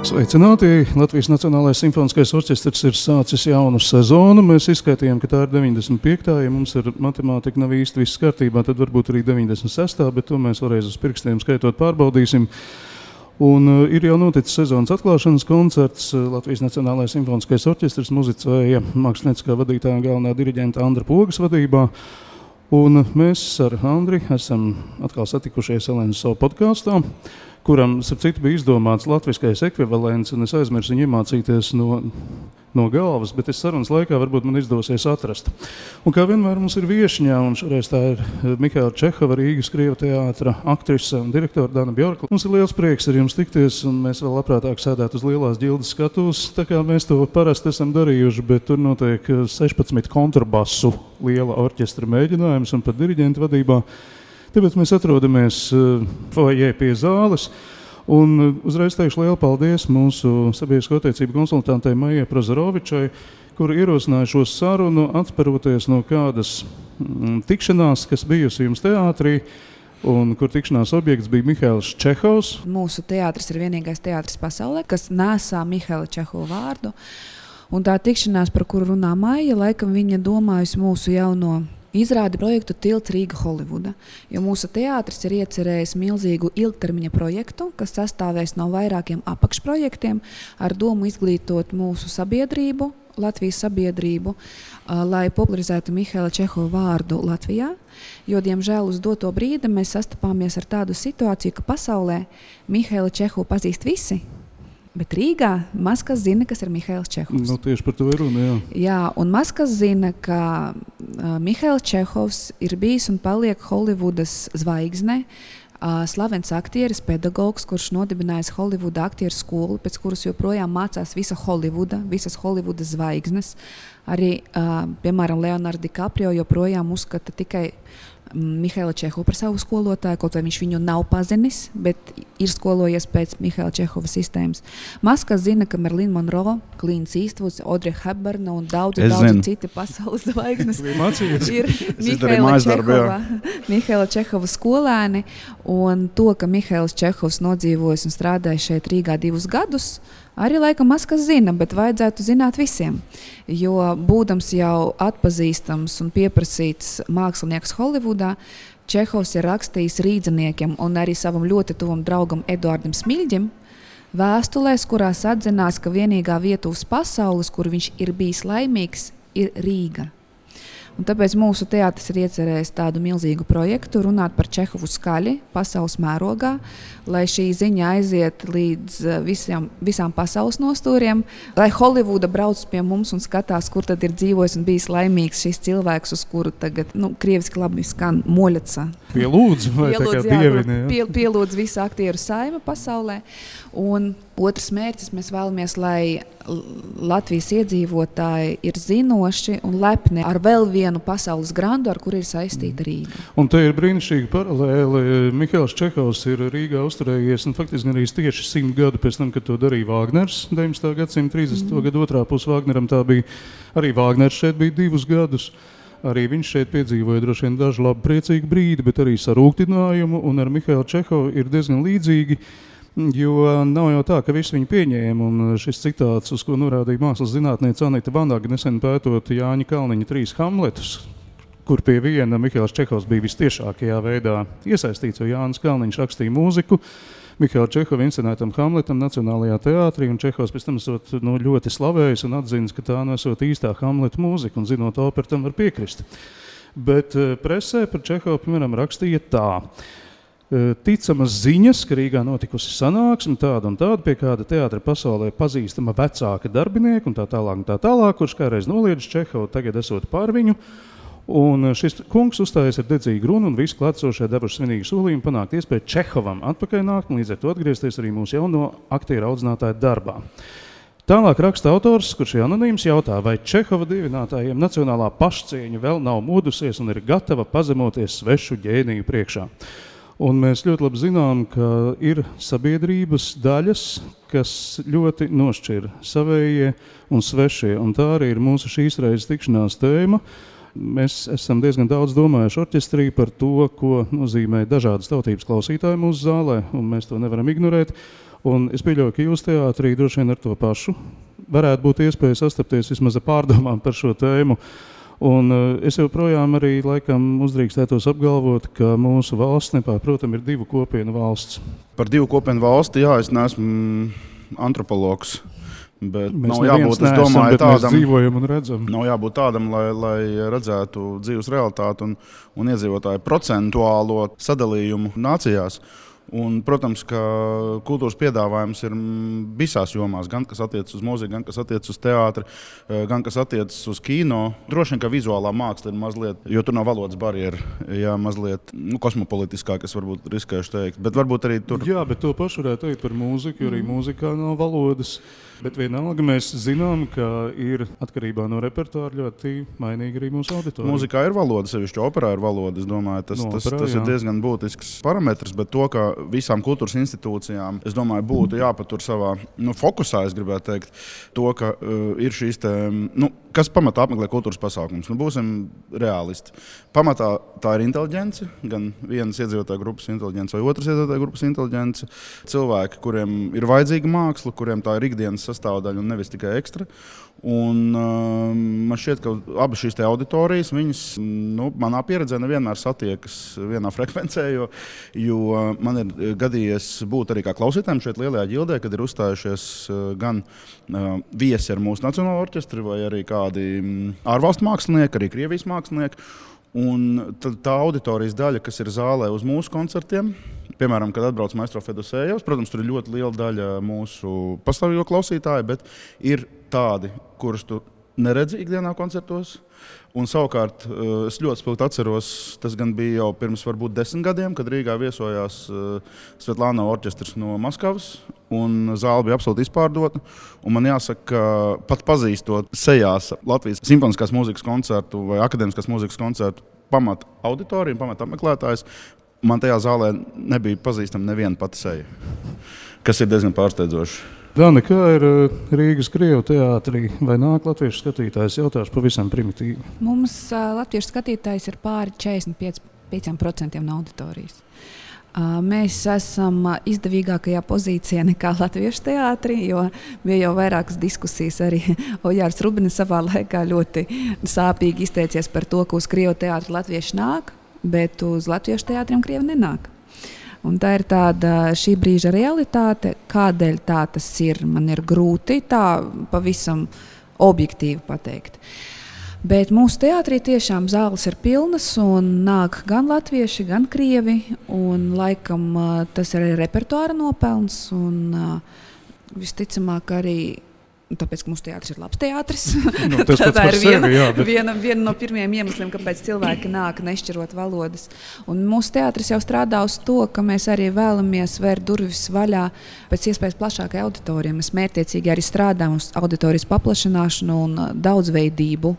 Sveicināti! Latvijas Nacionālais simfoniskais orķestrs ir sācis jaunu sezonu. Mēs izskaitījām, ka tā ir 95. Ja mums ar matemātiku nav īsti viss kārtībā, tad varbūt arī 96. Bet to mēs vēlreiz uz pirkstiem skaitot pārbaudīsim. Un ir jau noticis sezonas atklāšanas koncerts. Latvijas Nacionālais simfoniskais orķestrs muzicēja mākslinieckā vadītāja un galvenā diriģenta Andra Pogas vadībā. Un mēs ar Andri esam atkal satikušies Elenas savu podkāstā, kuram, starp citu, bija izdomāts latviskais ekvivalents, un es aizmirsu viņu iemācīties no galvas, bet es sarunas laikā varbūt man izdosies atrast. Un kā vienmēr mums ir viešņā, un šoreiz tā ir Mihaila Čehova, Rīgas Krievu teātra aktrise un direktora Dana Bjorka. Mums ir liels prieks ar jums tikties, un mēs vēl labprātāk sēdētu uz lielās ģildes skatuves, tā kā mēs to parasti esam darījuši, bet tur notiek 16 kontrabasu liela orķestra mēģinājums un pat diriģenta vadībā. Tāpēc mēs atrodamies foajē pie zāles, un uzreiz teikšu lielu paldies mūsu sabiedrisko attiecību konsultantei Maijai Prozorovičai, kur ierosināja šo sarunu atspēroties no kādas tikšanās, kas bijusi jums teātrī, un kur tikšanās objekts bija Mihails Čehovs. Mūsu teātris ir vienīgais teātris pasaulē, kas nesā Mihaila Čehova vārdu, un tā tikšanās, par kuru runā Maija, laikam viņa domājusi mūsu jauno izrādi projektu Tilts Rīga Holivuda, jo mūsu teātris ir iecerējis milzīgu ilgtermiņa projektu, kas sastāvēs no vairākiem apakšprojektiem ar domu izglītot mūsu sabiedrību, Latvijas sabiedrību, lai popularizētu Mihaila Čehova vārdu Latvijā, jo, diemžēl, uz doto brīdi mēs sastapāmies ar tādu situāciju, ka pasaulē Mihaila Čehovu pazīst visi, bet Rīgā maz kas zina, kas ir Mihails Čehovs. Nu, tieši par to ir runa, jā. Jā, un maz kas zina, ka Mihails Čehovs ir bijis un paliek Holivudas zvaigzne, slavens aktieris, pedagogs, kurš nodibinājis Holivuda aktieru skolu, pēc kuras joprojām mācās visa Holivuda, visas Holivudas zvaigznes. Arī, piemēram, Leonardo DiCaprio joprojām uzskata tikai Mihaila Čehovu par savu skolotāju, kaut vai viņš viņu nav pazinis, bet ir skolojies pēc Mihaila Čehova sistēmas. Maz kas zina, ka Marilyn Monroe, Clint Eastwoods, Audrey Hepburn un daudzi citi pasaules zvaigznes ir Mihaila Čehova skolēni, un to, ka Mihails Čehovs nodzīvojis un strādājis šeit Rīgā 2 gadus, arī laikam maz kas zina, bet vajadzētu zināt visiem, jo būdams jau atpazīstams un pieprasīts mākslinieks Holivudā, Čehovs ir rakstījis rīdziniekiem un arī savam ļoti tuvam draugam Eduardam Smiļģim vēstulēs, kurās atzinās, ka vienīgā vieta uz pasaules, kur viņš ir bijis laimīgs, ir Rīga. Un tāpēc mūsu teātris ir iecerējis tādu milzīgu projektu, runāt par Čehovu skaļi pasaules mērogā, lai šī ziņa aiziet līdz visām pasaules nostūriem, lai Holivuda brauc pie mums un skatās, kur tad ir dzīvojis un bijis laimīgs šis cilvēks, uz kuru tagad, krieviski labi skan Moļaca. Pielūdz, vai tā kā dievini, jā? Pielūdz visu aktieru saima pasaulē. Un otrs mērķis, mēs vēlamies, lai Latvijas iedzīvotāji ir zinoši un lepni ar vēl vienu pasaules grandu, ar kuru ir saistīta Rīga. Un te ir brīnišķīgi paralēli. Mihails Čehovs ir Rīgā uzturējies, un faktiski arī tieši 100 gadu pēc tam, kad to darīja Vāgners, 19. gadsimta 30. gadu otrā pus Vāgneram, tā bija arī Vāgners šeit bija 2 gadus. Arī viņš šeit piedzīvoja droši vien dažu labu priecīgu brīdi, bet arī sarūktinājumu, un ar Mihailu Čehovu ir diezgan līdzīgi, jo nav jau tā, ka visi viņu pieņēma, un šis citāts, uz ko norādīja mākslas zinātniece Anita Vanaga, nesen pētot Jāņa Kalniņa 3 Hamletus, kur pie viena Mihails Čehovs bija vistiešākajā veidā iesaistīts, jo Jānis Kalniņš rakstīja mūziku Mihaila Čehova inscenētam Hamletam Nacionālajā teātrī, un Čehovs pēc tam esot ļoti slavējis un atzinis, ka tā nesot īstā Hamleta mūzika, un zinot operu tam var piekrist. Bet presē par Čehovu, piemēram, rakstīja tā. Ticamas ziņas, ka Rīgā notikusi sanāksme tāda un tāda, pie kāda teātra pasaulē pazīstama vecāka darbinieka un tā tālāk, kurš kādreiz noliedz Čehovu, tagad esot pār viņu. Un šis kungs uzstājies ar dedzīgu runu un visi klātsošie devuši svinīgu solījumu panākt iespēju Čehovam atpakaļ nākt un līdz ar to atgriezties arī mūsu jauno aktieru audzinātāju darbā. Tālāk raksta autors, kurš ir anonīms, jautā, vai Čehova dievinātājiem nacionālā pašcieņa vēl nav modusies un ir gatava pazemoties svešu ģēniju priekšā. Un mēs ļoti labi zinām, ka ir sabiedrības daļas, kas ļoti nošķir savējie un svešie, un tā arī ir mūsu šīs reizes tikšanās tēma. Mēs esam diezgan daudz domājuši orķestrī par to, ko nozīmē dažādas tautības klausītāji mūsu zālē, un mēs to nevaram ignorēt. Un es pieļauju, ka jūs teātrī droši vien ar to pašu varētu būt iespēja sastapties vismaz ar pārdomām par šo tēmu. Un es joprojām arī laikam uzdrīkstētos apgalvot, ka mūsu valsts nepārprotam ir 2 kopienu valsts. Par 2 kopienu valsti, jā, es neesmu antropologs. Bet mēs nav jābūt, es domāju, tādam, mēs dzīvojam un redzam. Nav jābūt tādam, lai redzētu dzīves realitāti un iedzīvotāju procentuālo sadalījumu nācijās. Un, protams, ka kultūras piedāvājums ir visās jomās, gan kas attiecas uz mūziku, gan kas attiecas uz teātri, gan kas attiecas uz kino. Droši vien, ka vizuālā māksla ir mazliet, jo tur nav valodas barjera, jā, mazliet kosmopolitiskāk, es varbūt riskēšu teikt. Bet varbūt arī tur... Jā, bet to pašu varētu teikt par mūziku, jo arī mūzikā nav valodas. Bet vienalga mēs zinām, ka ir atkarībā no repertuāra ļoti mainīga arī mūsu auditorija. Mūzikā ir valoda, sevišķi operā ir valoda. Es domāju, tas ir diezgan būtisks parametrs, bet to, ka visām kultūras institūcijām, es domāju, būtu jāpatur savā fokusā, es gribētu teikt, to, ka ir šīs te, kas pamatā apmeklē kultūras pasākums. Būsim realisti. Pamatā tā ir inteliģence, gan vienas iedzīvotāju grupas inteliģence vai otras iedzīvotāju grupas inteliģence. Cilvēki, kuriem ir vajadzīga māksla, kuriem tā ir ikdienas sastāvdaļa un nevis tikai ekstra. Un man šķiet, ka abas šīs auditorijas, viņas, manā pieredzē nevienmēr satiekas vienā frekvencē, jo man ir gadījies būt arī kā klausītājiem šeit lielajā ģildē, kad ir uzstājušies gan viesi ar mūsu nacionālo orķestri vai arī kādi ārvalstu mākslinieki, arī Krievijas mākslinieki. Un tā auditorijas daļa, kas ir zālē uz mūsu koncertiem, piemēram, kad atbrauc Maestro Fedosejevs, protams, tur ir ļoti liela daļa mūsu pastāvīgo klausītāju, bet ir tādi, kurus tu neredzi ikdienā koncertos. Un savukārt es ļoti spilgti atceros, tas gan bija jau pirms varbūt 10 gadiem, kad Rīgā viesojās Svetlāna orķestris no Maskavas, un zāle bija absolūti izpārdota. Un man jāsaka, ka pat pazīstot sejās Latvijas simfoniskās mūzikas koncertu vai akadēmiskās mūzikas koncertu pamat auditoriju, pamat apmeklētājs, man tajā zālē nebija pazīstama neviena pati seja, kas ir diezgan pārsteidzoši. Dana, kā ir Rīgas Krievu teātrī? Vai nāk latviešu skatītājs? Jautāšu pavisam primitīvi. Mums latviešu skatītājs ir pāri 45% no auditorijas. Mēs esam izdevīgākajā pozīcijā nekā latviešu teātrī, jo bija jau vairākas diskusijas. Arī Ojārs Rubins savā laikā ļoti sāpīgi izteicies par to, ka uz Krievu teātri latvieši nāk, bet uz latviešu teātriem Krievi nenāk. Un tā ir tāda šī brīža realitāte, kādēļ tā tas ir. Man ir grūti tā pavisam objektīvi pateikt. Bet mūsu teātrī tiešām zāles ir pilnas un nāk gan latvieši, gan krievi. Un laikam tas ir arī repertuāra nopelns un visticamāk arī. Tāpēc, ka mūsu teātris ir labs teātris. Tā ir viena no pirmajiem iemesliem, kāpēc cilvēki nāk nešķirot valodas. Un mūsu teātris jau strādā uz to, ka mēs arī vēlamies vērt durvis vaļā pēc iespējas plašākai auditorijai. Mēs mērķtiecīgi arī strādājam uz auditorijas paplašināšanu un daudzveidību.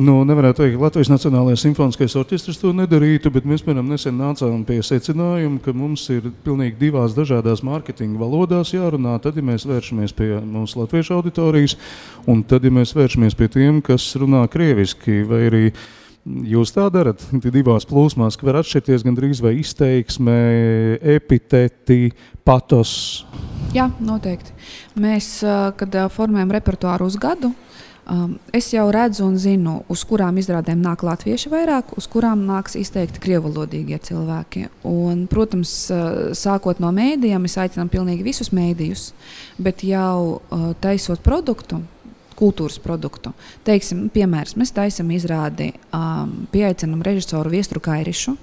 Nevarētu teikt, ka Latvijas Nacionālais simfoniskais orķestris to nedarītu, bet mēs, piemēram, nesen nācām pie secinājuma, ka mums ir pilnīgi 2 dažādās mārketinga valodās jārunā. Tad, ja mēs vēršamies pie mūsu latviešu auditorijas, un tad, ja mēs vēršamies pie tiem, kas runā krieviski, vai arī jūs tā darat, 2 plūsmās, ka var atšķirties gandrīz vai izteiksme, epiteti, patos. Jā, noteikti. Mēs, kad formējam repertuāru uz gadu, es jau redzu un zinu, uz kurām izrādēm nāk latvieši vairāk, uz kurām nāks izteikti krievvalodīgie cilvēki. Un, protams, sākot no mēdījiem, mēs aicinām pilnīgi visus mēdījus, bet jau taisot produktu, kultūras produktu. Teiksim, piemērs, mēs taisam izrādi, pieaicinam režisoru Viesturu Kairišu,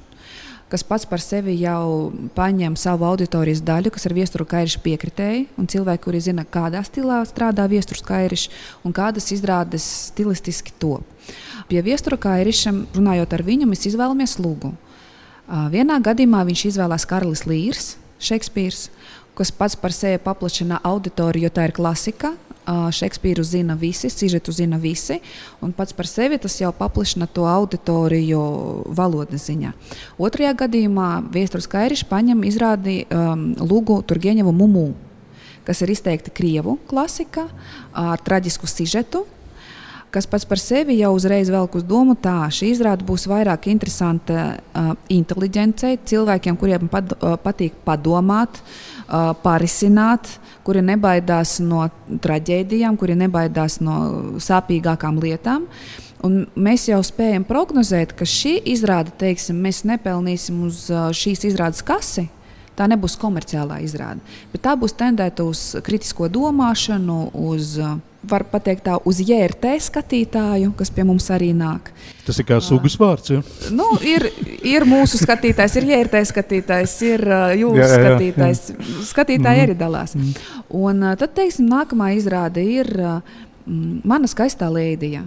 kas pats par sevi jau paņem savu auditorijas daļu, kas ir Viesturu Kairiša piekritēji, un cilvēki, kuri zina, kādā stilā strādā Viesturs Kairišs un kādas izrādes stilistiski top. Pie Viestura Kairiša, runājot ar viņu, mēs izvēlamies Lugu. Vienā gadījumā viņš izvēlās Karlis Līrs, Šekspīrs, kas pats par sevi paplašina auditoriju, jo tā ir klasika. Šekspīru zina visi, sižetu zina visi, un pats par sevi tas jau paplašina to auditoriju valodas ziņā. Otrajā gadījumā Viesturs Kairišs paņem izrādi Lugu Turgeņevu Mumu, kas ir izteikti krievu klasika ar traģisku sižetu. kas pats par sevi jau uzreiz velk uz domu tā, šī izrāde būs vairāk interesanta inteliģencei, cilvēkiem, kuriem patīk padomāt, parisināt, kuri nebaidās no traģēdijām, kuri nebaidās no sāpīgākām lietām. Un mēs jau spējam prognozēt, ka šī izrāde, teiksim, mēs nepelnīsim uz šīs izrādes kasi. Tā nebūs komerciālā izrāde, bet tā būs tendēta uz kritisko domāšanu, var pateikt tā, uz JRT skatītāju, kas pie mums arī nāk. Tas ir kā sugas vārds, ja? Nu, ir mūsu skatītājs, ir JRT skatītājs, ir jūsu skatītājs. Skatītāji arī dalās. Un tad, teiksim, nākamā izrāde ir Mana skaistā lēdija,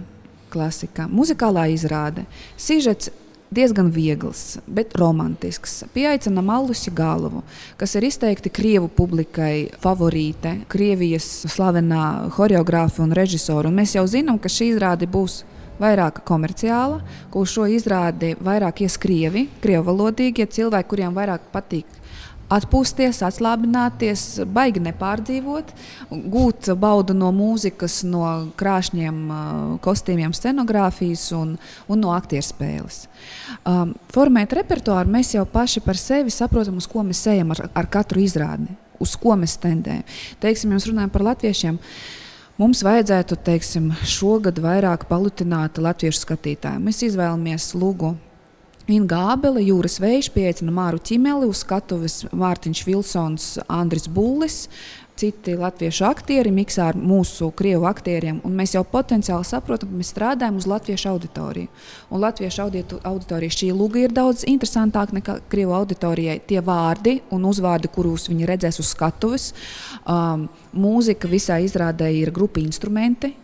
klasika, muzikālā izrāde. Sižets diezgan viegls, bet romantisks. Pieaicinām Allusi Galovu, kas ir izteikti Krievu publikai favorīte, Krievijas slavenā horeogrāfa un režisora. Un mēs jau zinām, ka šī izrāde būs vairāk komerciāla, ka uz šo izrādi vairāk ies krievi, krievalodīgie cilvēki, kuriem vairāk patīk atpūsties, atslābināties, baigi nepārdzīvot, gūt baudu no mūzikas, no krāšņiem kostīmiem, scenogrāfijas un no aktierspēles. Formēt repertuāru mēs jau paši par sevi saprotam, uz ko mēs ejam ar katru izrādi, uz ko mēs tendējam. Teiksim, ja mēs runājam par latviešiem, mums vajadzētu, teiksim, šogad vairāk palutināt latviešu skatītāju. Mēs izvēlamies Lugu Inga Ābele, Jūras Vējš, pieaicina Māru Ķimeli, uz skatuves Mārtiņš Vilsons, Andris Bullis, citi latviešu aktieri miksā ar mūsu krievu aktieriem, un mēs jau potenciāli saprotam, ka mēs strādājam uz latviešu auditoriju. Un latviešu auditorija šī Luga ir daudz interesantāk nekā krievu auditorijai. Tie vārdi un uzvārdi, kurus viņi redzēs uz skatuves, mūzika visā izrādē ir grupa instrumenti,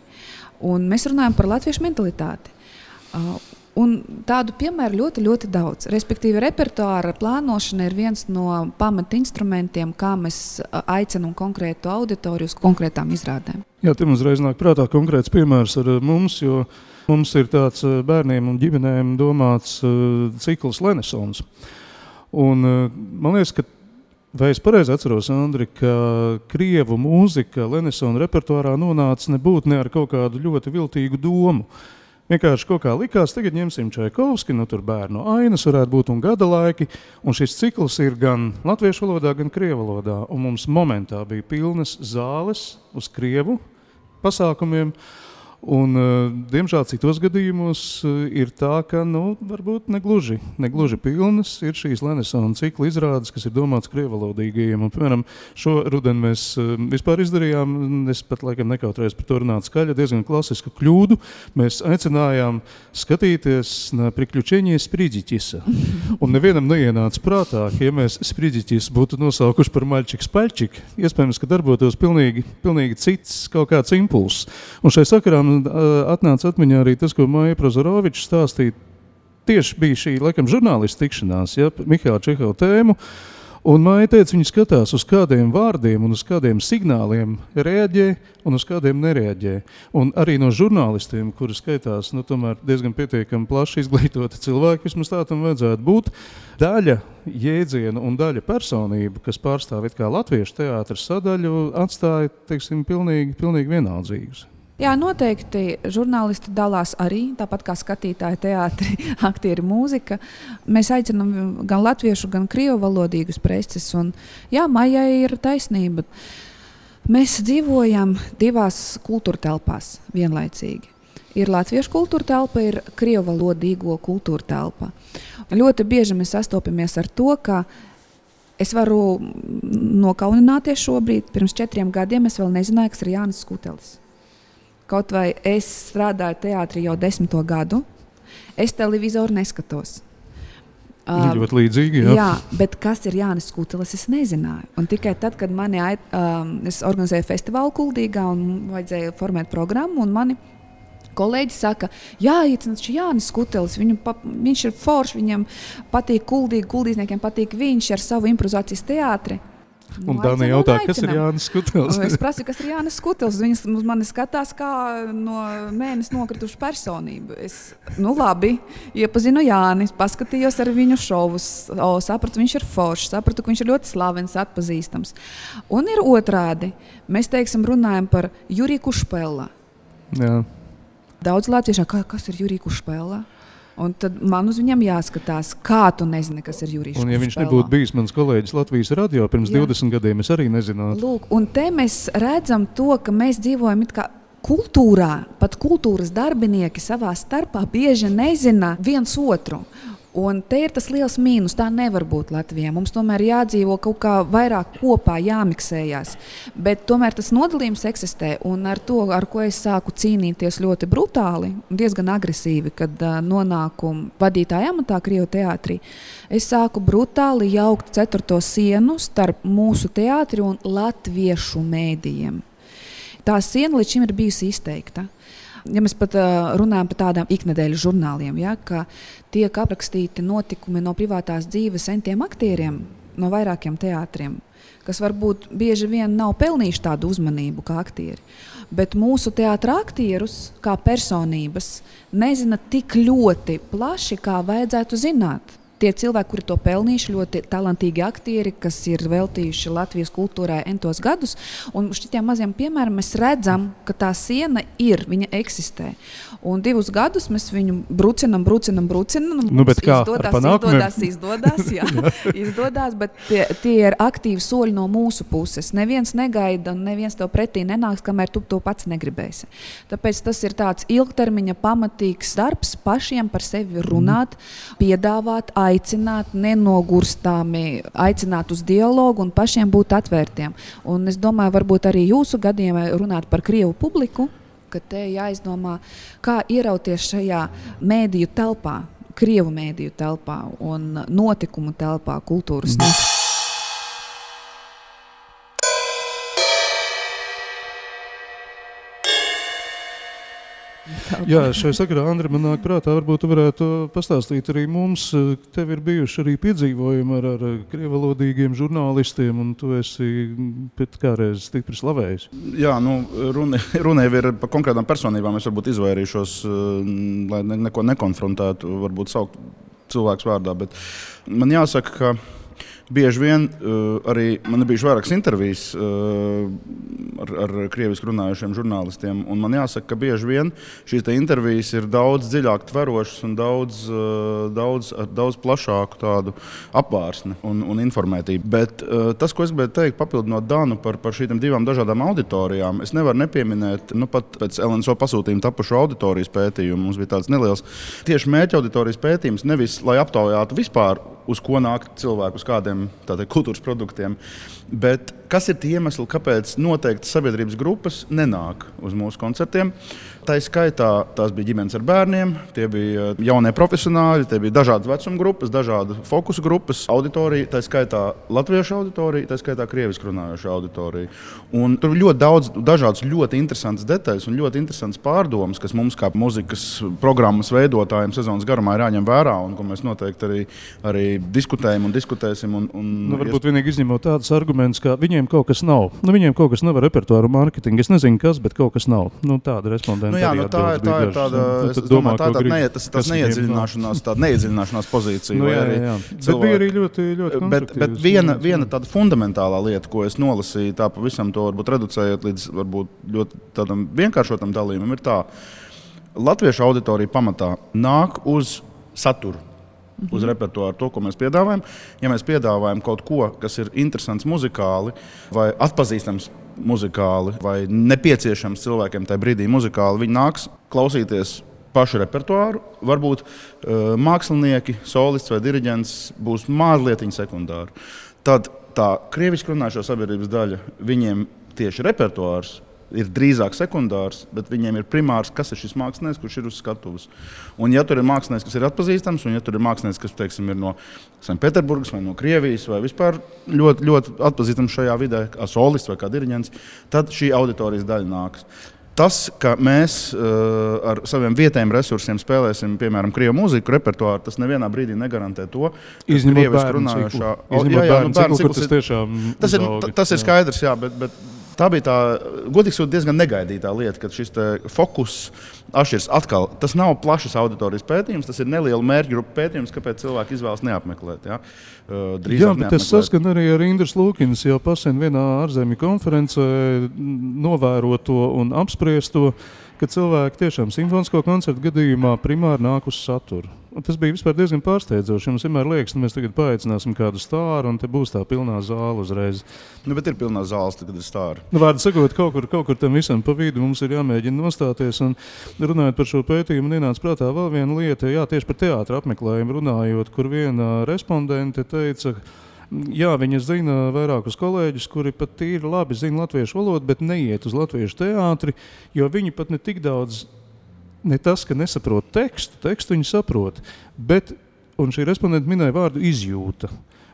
un mēs runājam par latviešu mentalitāti. Un tādu piemēru ļoti, ļoti daudz. Respektīvi, repertuāra plānošana ir viens no pamatinstrumentiem, kā mēs aicinām konkrētu auditoriju uz konkrētām izrādēm. Jā, te mums reiz nāk prātā konkrēts piemērs ar mums, jo mums ir tāds bērniem un ģimenēm domāts cikls Lenesons. Un man liekas, ka vai es pareizi atceros, Andri, ka krievu mūzika Lenesona repertuārā nonāca nebūtu ne ar kaut kādu ļoti viltīgu domu. Vienkārši kaut kā likās, tagad ņemsim Čaikovski, tur bērnu ainas varētu būt un gada laiki, un šis cikls ir gan latviešu valodā, gan krievu valodā, un mums momentā bija pilnas zāles uz krievu pasākumiem, un, diemžēl, citos gadījumos ir tā, ka, varbūt negluži pilnas ir šīs Lenesona cikla izrādes, kas ir domāts krievalodīgajiem. Un, piemēram, šo rudeni mēs vispār izdarījām, es pat laikam nekautrējos par to runāt skaļi, diezgan klasisku kļūdu. Mēs aicinājām skatīties na priekļučenie Spridzitisa. Un nevienam neienāca prātā, ja mēs Spridzitis būtu nosaukuši par maļčik-spaļčik, iespējams, ka darbotos pilnīgi cits kaut kāds impulss. Un šai sakarā atnāca atmiņā arī tas, ko Maija Prozoroviča stāstīja. Tieši bija šī, laikam, žurnālistu tikšanās, Mihaila Čehova tēmu, un Maija teica, viņi skatās uz kādiem vārdiem un uz kādiem signāliem reaģē un uz kādiem nereaģē. Un arī no žurnālistiem, kuri skaitās, tomēr diezgan pietiekami plaši izglītoti cilvēki, vismaz tā tam vajadzētu būt, daļa jēdzienu un daļa personību, kas pārstāv it kā latviešu teātra sadaļu, atstāja, teiksim, pilnīgi vienaldzīgus. Jā, noteikti žurnālisti dalās arī, tāpat kā skatītāji teātri, aktieri, mūzika. Mēs aicinām gan latviešu, gan krievu valodīgus preces. Un, jā, Maijai ir taisnība. Mēs dzīvojam divās kultūra telpās vienlaicīgi. Ir latviešu kultūra telpa, ir krievu valodīgo kultūra telpa. Ļoti bieži mēs sastopamies ar to, ka es varu nokaunināties šobrīd. Pirms 4 gadiem es vēl nezināju, kas ir Jānis Skutelis. Kaut vai es strādāju teātrī jau 10. gadu, es televizoru neskatos. Ļoti līdzīgi, jā. Jā, bet kas ir Jānis Skutelis, es nezināju. Un tikai tad, kad es organizēju festivālu Kuldīgā un vajadzēja formēt programmu, un mani kolēģi saka, jāiecināts Jānis Skutelis, viņš ir foršs, viņam patīk Kuldīgi, kuldīzniekiem patīk viņš ar savu improvizācijas teātri. Un Dāni jautā, kas ir Jānis Skutelis? Es prasu, kas ir Jānis Skutelis. Viņas uz mani skatās kā no mēnes nokritušu personību. Labi, iepazinu Jāni, paskatījos ar viņu šovus, sapratu, viņš ir foršs, sapratu, ka viņš ir ļoti slavens, atpazīstams. Un ir otrādi. Mēs, teiksim, runājam par Juriju Kušpela. Jā. Daudz latviešu, kas ir Jurij Kušpēlā? Un tad man uz viņam jāskatās, kā tu nezini, kas ir Jurijs Kušpēlā. Un ja viņš nebūtu bijis mans kolēģis Latvijas radio pirms 20 gadiem, es arī nezinātu. Lūk, un te mēs redzam to, ka mēs dzīvojam it kā kultūrā, pat kultūras darbinieki savā starpā bieži nezina viens otru. Un te ir tas liels mīnus, tā nevar būt Latvijā. Mums tomēr jādzīvo kaut kā vairāk kopā, jāmiksējās. Bet tomēr tas nodalījums eksistē, un ar to, ar ko es sāku cīnīties ļoti brutāli, diezgan agresīvi, kad nonāku vadītāja amatā Krievu teātrī, es sāku brutāli jaukt 4. sienu starp mūsu teātri un latviešu mēdījiem. Tā siena līdz šim ir bijusi izteikta. Ja mēs pat runājam par tādām iknedēļas žurnāliem, ja, ka tiek aprakstīti notikumi no privātās dzīves entiem aktieriem no vairākiem teātriem, kas varbūt bieži vien nav pelnījuši tādu uzmanību kā aktieri. Bet mūsu teātra aktierus, kā personības, nezina tik ļoti plaši, kā vajadzētu zināt. Tie cilvēki, kuri to pelnījuši, ļoti talantīgi aktieri, kas ir veltījuši Latvijas kultūrai entos gadus. Un šitiem maziem piemēram mēs redzam, ka tā siena ir, viņa eksistē. Un 2 gadus mēs viņu brucinam. Nu, bet kā? Izdodās, jā. Izdodās, bet tie ir aktīvi soļi no mūsu puses. Neviens negaida un neviens tev pretī nenāks, kamēr tu to pats negribēsi. Tāpēc tas ir tāds ilgtermiņa pamatīgs darbs, pašiem par sevi runāt, piedāvāt, aicināt, nenogurstāmi aicināt uz dialogu un pašiem būt atvērtiem. Un es domāju, varbūt arī jūsu gadījumā runāt par Krievu publiku, ka te jāizdomā, kā ierauties šajā mēdīju telpā, Krievu mēdīju telpā un notikumu telpā, kultūras notikumu. Jā, šai sakarā, Andri, man nāk prātā, varbūt tu varētu pastāstīt arī mums. Tev ir bijuši arī piedzīvojumi ar krievalodīgiem žurnālistiem, un tu esi pēc kādreiz stipri slavējis. Jā, runa jau ir par konkrētām personībām. Es varbūt izvairīšos, lai neko nekonfrontētu, varbūt saukt cilvēks vārdā, bet man jāsaka, ka bieži vien arī man ir bijuši vairākas intervijas ar krieviski runājušiem žurnālistiem, un man jāsaka, ka bieži vien šīs intervijas ir daudz dziļāk tverošas un daudz plašāku tādu apvārsni un informētību. Bet tas, ko es gribēju teikt, papildinot Danu par šīm 2 dažādām auditorijām, es nevaru nepieminēt, pat pēc LNSO pasūtījuma tapušu auditorijas pētījumu, mums bija tāds neliels tieši mērķa auditorijas pētījums, nevis lai aptaujātu vispār, uz ko nāk cilvēku, uz kādiem kultūras produktiem. Bet kas ir tie iemesli, kāpēc noteikti sabiedrības grupas nenāk uz mūsu koncertiem? Tā skaitā tās bija ģimenes ar bērniem, tie bija jaunie profesionāļi, tie bija dažādas vecuma grupas, dažādu fokusu grupas, auditorija, tā skaitā latviešu auditorija, tā skaitā krieviski runājoša auditorija. Un tur ir ļoti daudz dažādas ļoti interesantas detaļas un ļoti interesantas pārdomas, kas mums kā muzikas programmas veidotājiem sezonas garumā ir jāņem vērā un ko mēs noteikti arī diskutējam un diskutēsim. Varbūt vienīgi izņemot tādus argumentus, ka viņiem kaut kas nav. Viņiem kaut kas nav ar repertuāru mārketingu. Es nezinu, kas, bet kaut kas nav. Tāda respondenta. Tā ir tāda, es domāju, tas neiedziļināšanās pozīcija. Jā. Bet bija arī ļoti bet viena tāda fundamentālā lieta, ko es nolasīju, tā pavisam to varbūt reducējot līdz varbūt ļoti tādam vienkāršotam dalījumam, ir tā. Latviešu auditorija pamatā nāk uz saturu. Uz repertuāru, to, ko mēs piedāvājam. Ja mēs piedāvājam kaut ko, kas ir interesants muzikāli vai atpazīstams muzikāli vai nepieciešams cilvēkiem tajā brīdī muzikāli, viņi nāks klausīties pašu repertuāru. Varbūt mākslinieki, solists vai diriģents būs mazliet sekundāri. Tad tā krieviski runājošo sabiedrības daļa, viņiem tieši repertuārs ir drīzāk sekundārs, bet viņiem ir primārs, kas ir šis mākslinieks, kurš ir uz skatuves. Un ja tur ir mākslinieks, kas ir atpazīstams, un ja tur ir mākslinieks, kas, teiksim, ir no Sanktpēterburgas vai no Krievijas vai vispār ļoti, ļoti atpazīstams šajā vidē, kā solists vai kā diriģents, tad šī auditorijas daļa nāks. Tas, ka mēs ar saviem vietējiem resursiem spēlēsim, piemēram, krievu mūziku repertuāru, tas nevienā brīdī negarantē to, ka krieviski runājošā... Tas ir skaidrs, jā, bet tā bija tā, godīgi sakot, diezgan negaidītā lieta, kad šis fokus atšķiras atkal. Tas nav plašas auditorijas pētījums, tas ir neliela mērķa grupa pētījums, kāpēc cilvēki izvēlas neapmeklēt. Jā, bet es saskanu arī ar Indras Lūkinas jau pasen vienā ārzemju konferencē novēroto un apspriesto, ka cilvēki tiešām simfonisko koncertu gadījumā primāri nāk uz saturu. Un tas bija vispār diezgan pārsteidzoši. Mums vienmēr liekas, ka mēs tagad paaicināsim kādu stāru, un te būs tā pilnā zāle uzreiz. Bet ir pilnā zāles, kad ir stāri. Vārdu sakot, kaut kur tam visam pa vidu mums ir jāmēģina nostāties. Un runājot par šo pētījumu, ienāca prātā vēl viena lieta, tieši par teātra apmeklējumu runājot, kur viena respondente teica, jā, viņa zina vairākus kolēģus, kuri pat tīri labi zina latviešu valodu, bet neiet uz latviešu teātri, jo viņi pat ne tik daudz, ne tas, ka nesaprot tekstu viņi saprot, bet, un šī respondenta minēja vārdu izjūta.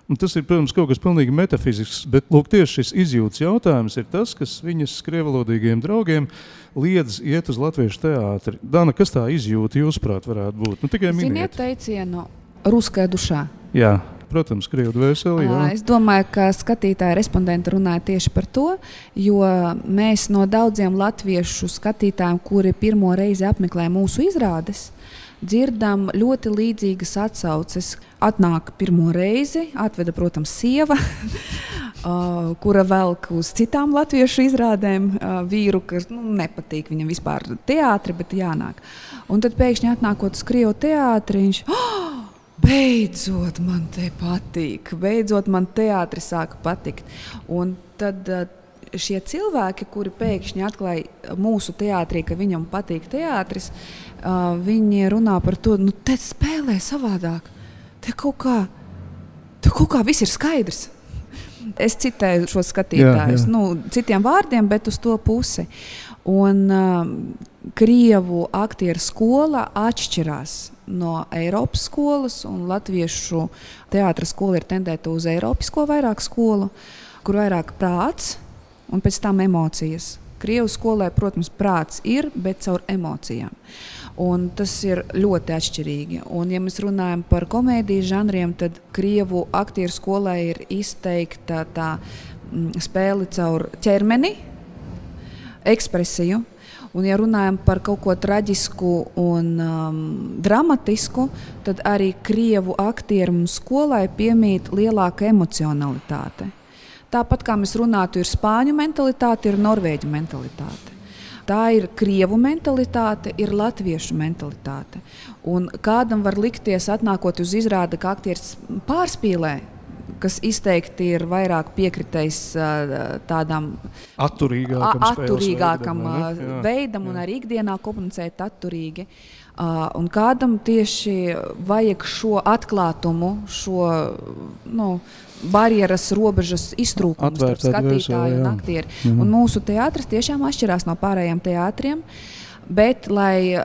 Un tas ir, protams, kaut kas pilnīgi metafizisks, bet lūk, tieši šis izjūtas jautājums ir tas, kas viņas krievalodīgiem draugiem liedz iet uz latviešu teātri. Dana, kas tā izjūta jūsuprāt varētu būt? Tikai miniet. Ziniet teicienu ruskajā dušā? Jā. Protams, krievu dvēseli. Es domāju, ka skatītāji respondenti runāja tieši par to, jo mēs no daudziem latviešu skatītājiem, kuri pirmo reizi apmeklē mūsu izrādes, dzirdam ļoti līdzīgas atsauces. Atnāk pirmo reizi, atveda, protams, sieva, kura velk uz citām latviešu izrādēm vīru, kas nepatīk viņam vispār teātri, bet jānāk. Un tad pēkšņi atnākot uz krievu teātri, viņš beidzot man te patīk, beidzot man teātris sāka patikt. Un tad šie cilvēki, kuri pēkšņi atklāja mūsu teātrī, ka viņam patīk teātris, viņi runā par to, te spēlē savādāk, te kaut kā viss ir skaidrs. Es citēju šo skatītājus, citiem vārdiem, bet uz to pusi. Un krievu aktieru skola atšķirās no Eiropas skolas, un latviešu teātra skola ir tendēta uz eiropisko vairāk skolu, kur vairāk prāts un pēc tam emocijas. Krievu skolē, protams, prāts ir, bet caur emocijām. Un tas ir ļoti atšķirīgi. Un, ja mēs runājam par komēdijas žanriem, tad krievu aktieru skolē ir izteikta tā spēle caur ķermeni, ekspresiju. Un, ja runājam par kaut ko traģisku un dramatisku, tad arī krievu aktieru skolai piemīt lielāka emocionalitāte. Tāpat kā mēs runātu, ir spāņu mentalitāte, ir norvēģu mentalitāte. Tā ir krievu mentalitāte, ir latviešu mentalitāte. Un kādam var likties, atnākot uz izrādi, ka aktieris pārspīlē, kas izteikti ir vairāk piekritējis tādam atturīgākam veidam un arī ikdienā komunicēt atturīgi. Un kādam tieši vajag šo atklātumu, šo barjeras robežas iztrūkumu starp skatītāju un aktieri. Un mūsu teātris tiešām atšķirās no pārējiem teātriem. Bet, lai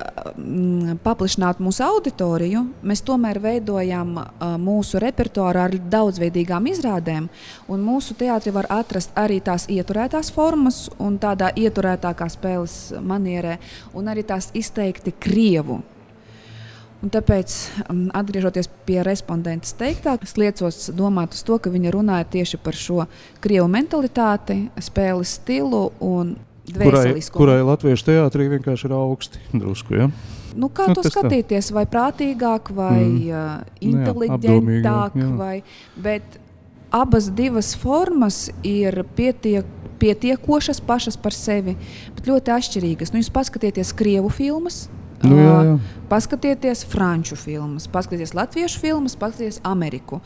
paplašinātu mūsu auditoriju, mēs tomēr veidojam mūsu repertuāru ar daudzveidīgām izrādēm. Un mūsu teātri var atrast arī tās ieturētās formas un tādā ieturētākā spēles manierē, un arī tās izteikti krievu. Un tāpēc, atgriežoties pie respondentes teiktā, es liecos domāt uz to, ka viņa runāja tieši par šo krievu mentalitāti, spēles stilu un kurai latviešu teātrī vienkārši ir augsti drusku, ja? Kā to skatīties, vai prātīgāk, vai inteliģentāk, bet abas divas formas ir pietiekošas pašas par sevi, bet ļoti atšķirīgas. Jūs paskatieties krievu filmas, paskatieties franču filmas, paskatieties latviešu filmas, paskatieties Ameriku.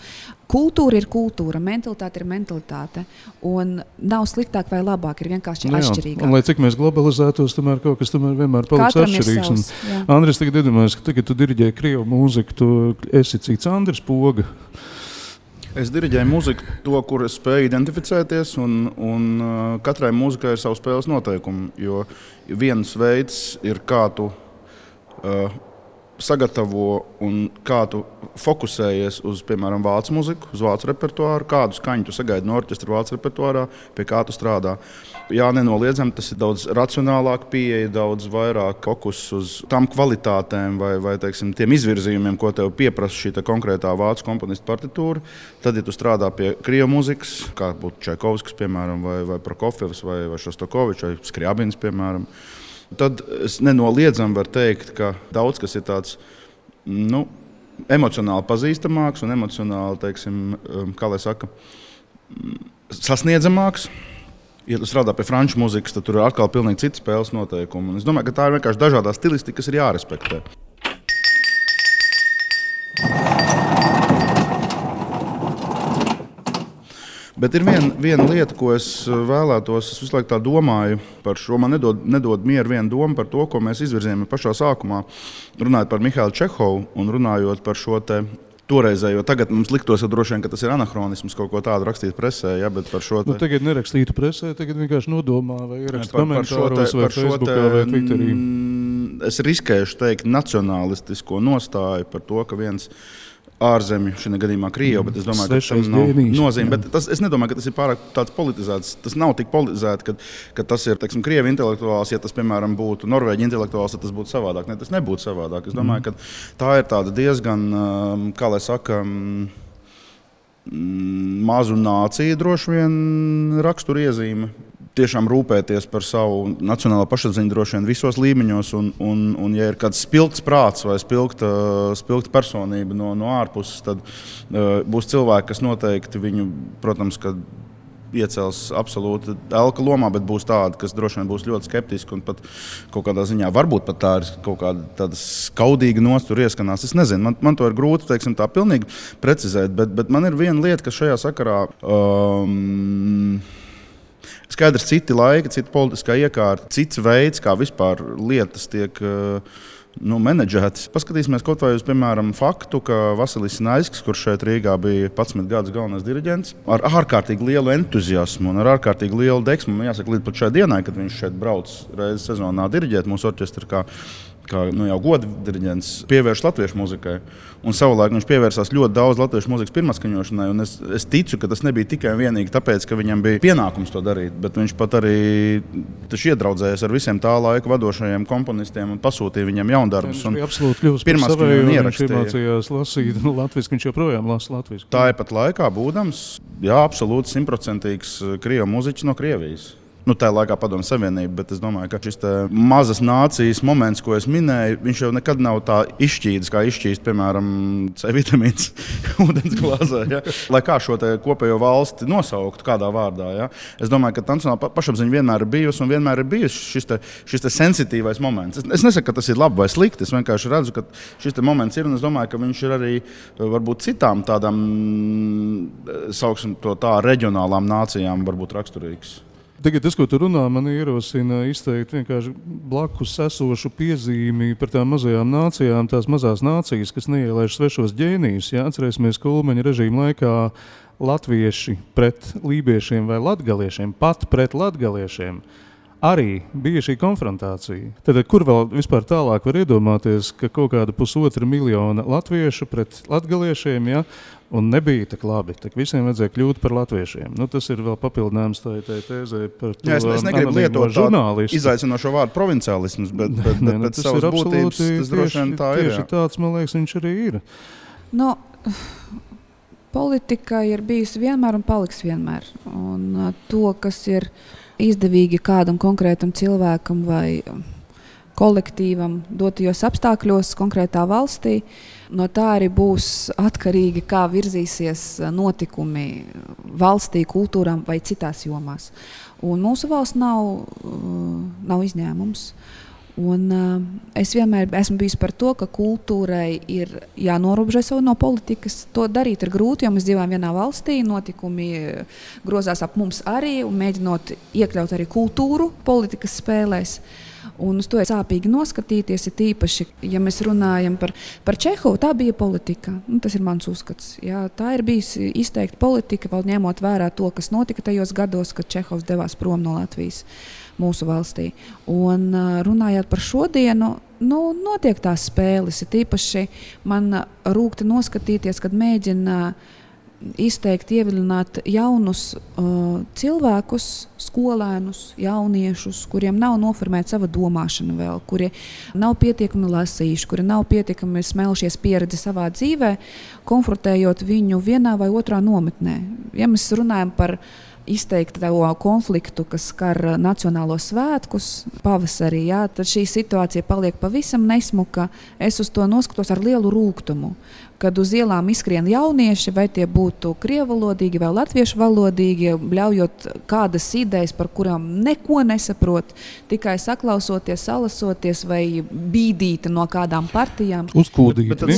Kultūra ir kultūra, mentalitāte ir mentalitāte. Un nav sliktāk vai labāk, ir vienkārši atšķirīgāk. Un lai cik mēs globalizētos, tomēr kaut kas vienmēr paliks atšķirīgs. Andris, tagad iedomājies, ka tagad tu diriģēji krievu mūziku, tu esi cits Andris Poga. Es diriģēju mūziku, to, kur es spēju identificēties, un katrai mūzikai ir savu spēles noteikumu. Jo viens veids ir, kā tu sagatavo un kā tu fokusējies uz, piemēram, vācu muziku, uz vācu repertuāru, kādu skaņu tu sagaidi no orķestra vācu repertuārā, pie kā tu strādā. Jā, nenoliedzami, tas ir daudz racionālāk pieeja, daudz vairāk fokus uz tām kvalitātēm vai teiksim, tiem izvirzījumiem, ko tev pieprasa šī konkrētā vācu komponista partitūra. Tad, ja tu strādā pie krievu muzikas, kā būtu Čaikovskis, piemēram, vai Prokofjevs, vai Šostakovičs, vai Skriabins, piemēram, tad es nenoliedzami varu teikt, ka daudz kas ir tāds emocionāli pazīstamāks un emocionāli, teiksim, kā lai saka, sasniedzamāks. Ja tu strādā pie franču mūzikas, tad tur ir atkal pilnīgi citi spēles noteikumi. Un es domāju, ka tā ir vienkārši dažādā stilistika, kas ir jārespektē. Bet ir viena lieta, ko es vēlētos, es visu laiku tā domāju par šo. Man nedod mieru viena doma par to, ko mēs izvirzījām pašā sākumā, runājot par Mihailu Čehovu un runājot par šo te toreizējo. Tagad mums liktos, droši vien, ka tas ir anahronisms kaut ko tādu rakstīt presē, ja, bet par šo te... Tagad nerakstītu presē, tagad vienkārši nodomā vai ierakst komentāros vai Facebookā vai Twitterī. Es riskēšu teikt nacionalistisko nostāju par to, ka viens ārzemju, šī gadījumā Krievu, bet es domāju, ka tam nav nozīme. Es nedomāju, ka tas ir pārāk tāds politizēts. Tas nav tik politizēti, ka tas ir, teiksim, Krievu intelektuāls. Ja tas, piemēram, būtu Norvēģi intelektuāls, tad tas būtu savādāk. Ne, tas nebūtu savādāk. Es domāju, ka tā ir tāda diezgan, kā lai saka, mazu nāciju droši vien raksturiezīme. Tiešām rūpēties par savu nacionālo pašapziņu droši vien visos līmeņos, un ja ir kāds spilgts prāts vai spilgta personība no ārpuses, tad būs cilvēki, kas noteikti viņu, protams, ka iecels absolūti elka lomā, bet būs tādi, kas droši vien būs ļoti skeptiski un pat kaut kādā ziņā varbūt pat tā ir kaut kāda tāda skaudīga nostura ieskanās. Es nezinu, man to ir grūti, teiksim, tā pilnīgi precizēt, bet man ir viena lieta, kas šajā sakarā skaidrs, citi laiki, cita politiskā iekārta, cits veids, kā vispār lietas tiek menedžētas. Paskatīsimies kaut vai uz, piemēram, faktu, ka Vasilijs Naļskis, kurš šeit Rīgā bija 11 gadus galvenais diriģents, ar ārkārtīgi lielu entuziasmu un ar ārkārtīgi lielu deksmu, man jāsaka, līdz pat šai dienai, kad viņš šeit brauc reizi sezonā diriģēt mūsu orķestru, kā jau goda diriģents, pievērš latviešu muzikai. Un savulaik viņš pievērsās ļoti daudz latviešu muzikas pirmaskaņošanai, un es ticu, ka tas nebija tikai un vienīgi tāpēc, ka viņam bija pienākums to darīt, bet viņš pat arī iedraudzējās ar visiem tā laika vadošajiem komponistiem un pasūtīja viņam jaundarbus. Viņš bija absolūti kļūst par savēju, viņš iemācījās lasīt latviski, viņš joprojām lasa latviski. Tāpat laikā būdams, absolūti 100% krievu muziķis no Krievijas. Tajā laikā Padomju Savienība, bet es domāju, ka šis mazas nācijas moments, ko es minēju, viņš jau nekad nav tā izšķīdis, kā izšķīst, piemēram, C vitamīns ūdens glāzē. Ja? Lai kā šo kopējo valsti nosauktu kādā vārdā. Ja? Es domāju, ka nacionāla pašapziņa vienmēr ir bijusi un vienmēr ir bijusi šis sensitīvais moments. Es nesaku, ka tas ir labi vai slikti, es vienkārši redzu, ka šis moments ir, un es domāju, ka viņš ir arī varbūt citām tādām, sauksim to tā, reģionālām nācijām varbūt raksturīgs. Tagad tas, ko tu runā, man ierosina izteikt vienkārši blakus esošu piezīmi par tām mazajām nācijām, tās mazās nācijas, kas neielaiž svešos ģēnijus. Ja? Atcerēsimies Kulmeņa režīma laikā latvieši pret lībiešiem vai latgaliešiem, pat pret latgaliešiem. Arī bija šī konfrontācija. Tad, kur vēl vispār tālāk var iedomāties, ka kaut kāda 1,5 miljona latviešu pret latgaliešiem, ja, un nebija tak labi, tak visiem vajadzēja kļūt par latviešiem. Tas ir vēl papildinājums tai tēzē par to es negribu lietot žurnālistu. Izaicinošo vārdu provinciālisms, bet pēc savas būtības tas droši vien tā ir. Tieši tāds, man liekas, viņš arī ir. Politika ir bijusi vienmēr un paliks vienmēr. Un to, kas ir izdevīgi kādam konkrētam cilvēkam vai kolektīvam dotajos apstākļos konkrētā valstī, no tā arī būs atkarīgi, kā virzīsies notikumi valstī, kultūrām vai citās jomās. Un mūsu valsts nav izņēmums. Un, es vienmēr esmu bijusi par to, ka kultūrai ir jānorobežo sev no politikas. To darīt ir grūti, jo mēs dzīvojam vienā valstī, notikumi grozās ap mums arī, un mēģinot iekļaut arī kultūru politikas spēlēs. Un uz to ir sāpīgi noskatīties, ir tīpaši, ja mēs runājam par Čehovu, tā bija politika. Tas ir mans uzskats. Jā, tā ir bijusi izteikta politika, vēl ņemot vērā to, kas notika tajos gados, kad Čehovs devās prom no Latvijas mūsu valstī. Un runājot par šodienu, notiek tās spēles, ir tīpaši man rūkti noskatīties, kad mēģina izteikt, ievilināt jaunus cilvēkus, skolēnus, jauniešus, kuriem nav noformēta sava domāšana vēl, kuri nav pietiekami lasījuši, kuri nav pietiekami smelšies pieredzi savā dzīvē, konfrontējot viņu vienā vai otrā nometnē. Ja mēs runājam par izteikti to konfliktu, kas skar nacionālos svētkus pavasarī, tad šī situācija paliek pavisam nesmuka. Es uz to noskatos ar lielu rūgtumu, kad uz ielām izskrien jaunieši, vai tie būtu krievalodīgi vai latviešu valodīgi, bļaujot kādas idejas, par kurām neko nesaprot, tikai saklausoties, salasoties vai bīdīti no kādām partijām. Uzkūdīt. Bet tad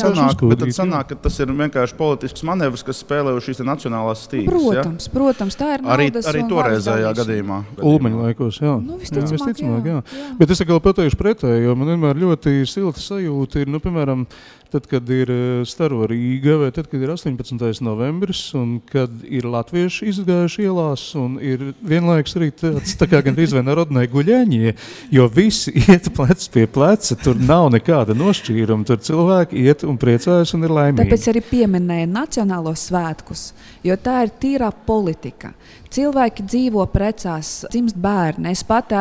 sanāk, ka tas ir vienkārši politisks manevrs, kas spēlē uz šīs nacionālās stīgas. Protams, tā ir naudas arī toreizējā gadījumā. Ulmeņa laikos, jā. Visticamāk, jā. Bet es atkal pateikšu pretēji, jo man vienmēr ļoti silta sajūta ir, piemēram, tad, kad ir Staro Rīga, vai tad, kad ir 18. novembris, un kad ir latvieši izgājuši ielās, un ir vienlaikus arī tāds, tā kā gandrīz vai narodnai guļaņie, jo visi iet plec pie pleca, tur nav nekāda nošķīruma, tur cilvēki iet un priecājas un ir laimīgi. Tāpēc arī pieminēja nacionālos svētkus, jo tā ir tīrā politika. Cilvēki dzīvo, precās, dzimst bērni. Es pati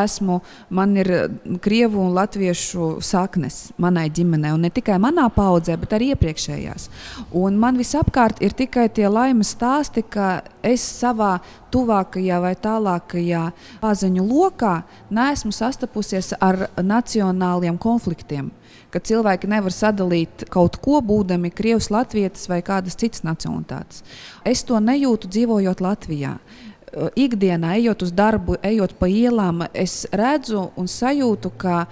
man ir krievu un latviešu saknes manai ģimenei, un ne tikai manā paudzē, bet arī iepriekšējās. Un man visapkārt ir tikai tie laimes stāsti, ka es savā tuvākajā vai tālākajā paziņu lokā neesmu sastapusies ar nacionāliem konfliktiem, kad cilvēki nevar sadalīt kaut ko, būdami krievs, latvietis vai kādas citas nacionalitātes. Es to nejūtu dzīvojot Latvijā. Ikdienā, ejot uz darbu, ejot pa ielām, es redzu un sajūtu, ka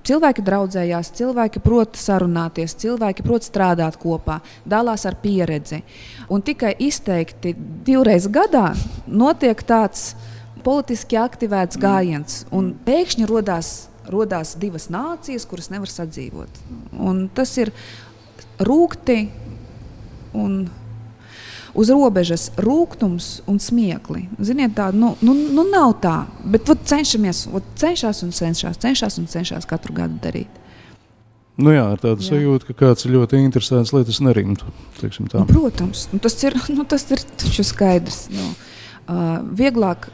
cilvēki draudzējās, cilvēki prot sarunāties, cilvēki prot strādāt kopā, dalās ar pieredzi. Un tikai izteikti 2 reizes gadā notiek tāds politiski aktivēts gājiens, un pēkšņi rodās 2 nācijas, kuras nevar sadzīvot. Un tas ir rūgti un uz robežas rūgtums un smiekli. Ziniet, tā, nav tā, bet cenšas katru gadu darīt. Nu jā, ar tādu sajūtu, ka kāds ir ļoti interesants, lai tas nerimtu, teiksim tā. Protams, tas ir taču skaidrs. Vieglāk,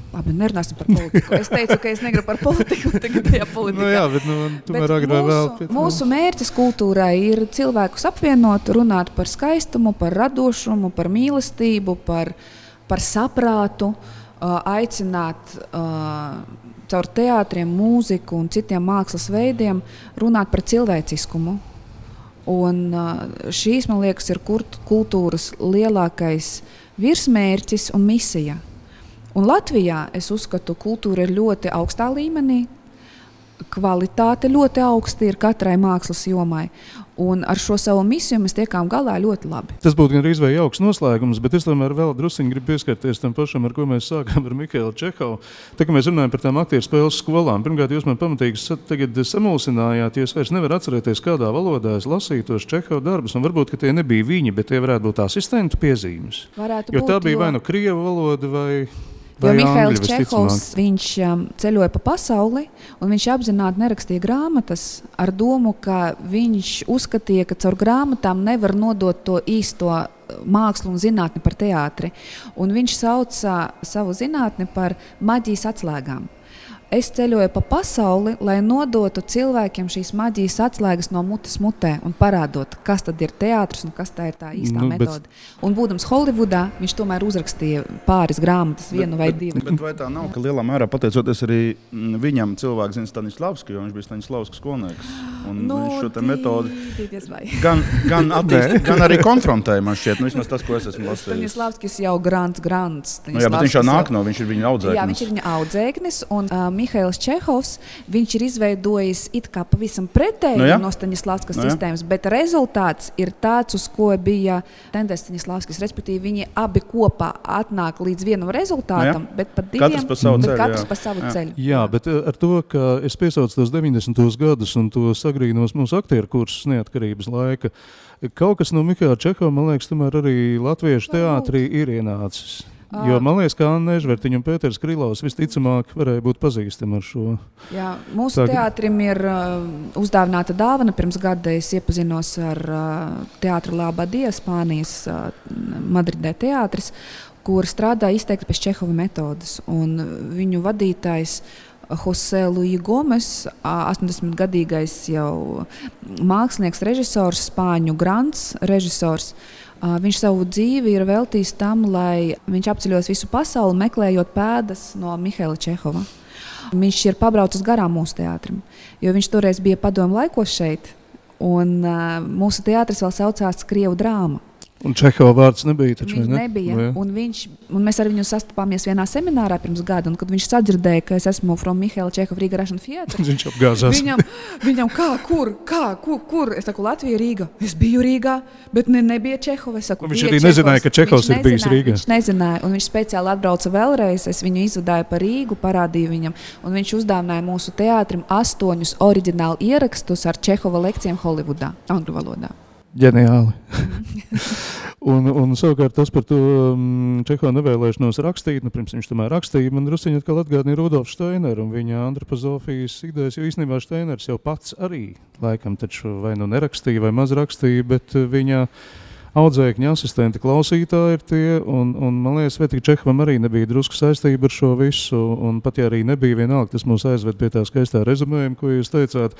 labi, nerunāsim par politiku. Es teicu, ka es negribu par politiku, tagad tajā politikā. Nu jā, bet tomēr agrāk vēl. Mūsu mērķis kultūrai ir cilvēkus apvienot, runāt par skaistumu, par radošumu, par mīlestību, par saprātu, aicināt caur teātriem, mūziku un citiem mākslas veidiem runāt par cilvēciskumu. Un šīs, man liekas, ir kultūras lielākais virsmērķis un misija. Un Latvijā, es uzskatu, kultūra ir ļoti augstā līmenī, kvalitāte ļoti augsta ir katrai mākslas jomai. Un ar šo savu misiju mēs tiekām galā ļoti labi. Tas būtu gandrīz vai jauks noslēgums, bet es tomēr vēl drusciņi gribu pieskarties tam pašam, ar ko mēs sākām ar Mihailu Čehovu. Tā kā mēs runājam par tām aktieru spēles skolām, pirmkārt, jūs man pamatīgi tagad samulsinājāt, jūs vairs nevar atcerēties, kādā valodā es lasīju tos Čehovu darbus, un varbūt, ka tie nebija viņi, bet tie varētu būt asistentu piezīmes. Jo tā bija vai nu krievu valoda vai... Jo Mihails Čehovs, viņš ceļoja pa pasauli, un viņš apzināti nerakstīja grāmatas ar domu, ka viņš uzskatīja, ka caur grāmatām nevar nodot to īsto mākslu un zinātni par teātri. Un viņš sauca savu zinātni par maģijas atslēgām. Es ceļoju pa pasauli, lai nodotu cilvēkiem šīs maģijas atslēgas no mutes mutē un parādot, kas tad ir teātris un kas tā ir tā īstā metode. Un būdams Holivudā, viņš tomēr uzrakstīja pāris grāmatas, vienu vai divu. Bet vai tā nav, ka lielā mērā pateicoties arī viņam cilvēks zina Staņislavski, jo viņš bija Staņislavskas skolnieks. Un viņš šo te metodi gan attīst, gan arī konfrontēja, man šķiet, vismaz tas, ko es esmu lasījis. Staņislavskis jau grants. Jā, bet viņš jau nāk no, viņš ir viņa audzēknis. Jā, viņš ir viņa audzēknis, un Mihails Čehovs, viņš ir izveidojis it kā pavisam pretēji no Staņislavskas sistēmas, bet rezultāts ir tāds, uz ko bija tendēts Staņislavskis, respektīvi viņi abi kopā atnāk līdz vienam rezultātam, bet pat diviem, katrs pa savu ceļu. Jā, bet ar to, ka es piesaucu tos 90. gadus un to sagrīnos mūsu aktieru kursus neatkarības laika, kaut kas no Mihaila Čehova, man liekas, tomēr arī latviešu teātrī ir ienācis. Jo man liekas, ka Anna Ežvertiņa un Pēters Krilovs visticamāk varēja būt pazīstami ar šo. Jā, mūsu teātrim ir uzdāvināta dāvana. Pirms gada es iepazinos ar teātru Labadie, Spānijas Madridē teātris, kur strādā izteikti pēc Čehova metodas. Un viņu vadītājs Jose Luis Gomes, 80-gadīgais jau mākslinieks, režisors, spāņu grants režisors. Viņš savu dzīvi ir veltījis tam, lai viņš apceļos visu pasauli, meklējot pēdas no Mihaila Čehova. Viņš ir pabraucis garām mūsu teātrim, jo viņš toreiz bija padomu laikos šeit, Un mūsu teātris vēl saucās Krievu drāma. Un Čehova vārds nebija taču, Viņš nebija. Un mēs ar viņu sastapāmies vienā seminārā pirms gada, un kad viņš sadzirdēja, ka es esmu from Mihaila Čehova Rīga Russian Theatre, viņš apgāzās. Viņam kur? Es saku, Latvija, Rīga. Es biju Rīgā, bet nebija Čehova. Saku, viņš arī nezināja, ka Čehovs ir bijis Rīgā. Viņš nezināja, un viņš speciāli atbrauca vēlreiz. Es viņu izvadāju pa Rīgu, parādīju viņam, un viņš uzdāvināja mūsu teātrim 8 oriģinālu ierakstus ar Čehova lekcijām Holivudā, angļu valodā. Ģeniāli. un savukārt tas par to Čehova nevēlēšanos rakstīt, pirms viņš tomēr rakstīja, man drusciņi atkal atgādināja Rudolfu Steineru un viņa antropozofijas idejas, jo īstenībā Steiners jau pats arī laikam taču vai nu nerakstīja vai maz rakstīja, bet viņa audzēkņa asistenti klausītāji ir tie, un man liekas, vai tik Čehovam arī nebija drusku saistība ar šo visu, un pat ja arī nebija vienalga, tas mūs aizved pie tā skaistā rezumējuma, ko jūs teicāt,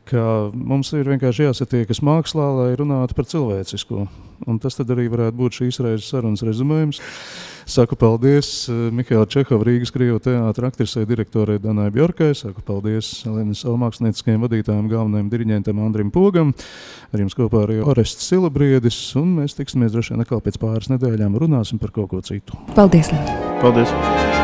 ka mums ir vienkārši jāsatiekas mākslā, lai runātu par cilvēcisko. Un tas tad arī varētu būt šīs reizes sarunas rezumējums. Saku paldies Mihaila Čehova Rīgas Krievu teātra aktrisei direktorei Danai Bjorkai. Saku paldies Lenes mākslinieckajiem vadītājiem, galvenajiem diriģentam Andrim Pogam. Ar jums kopā arī Orests Silabriedis. Un mēs tiksimies droši vien atkal pēc pāris nedēļām runāsim par kaut ko citu. Paldies! Paldies!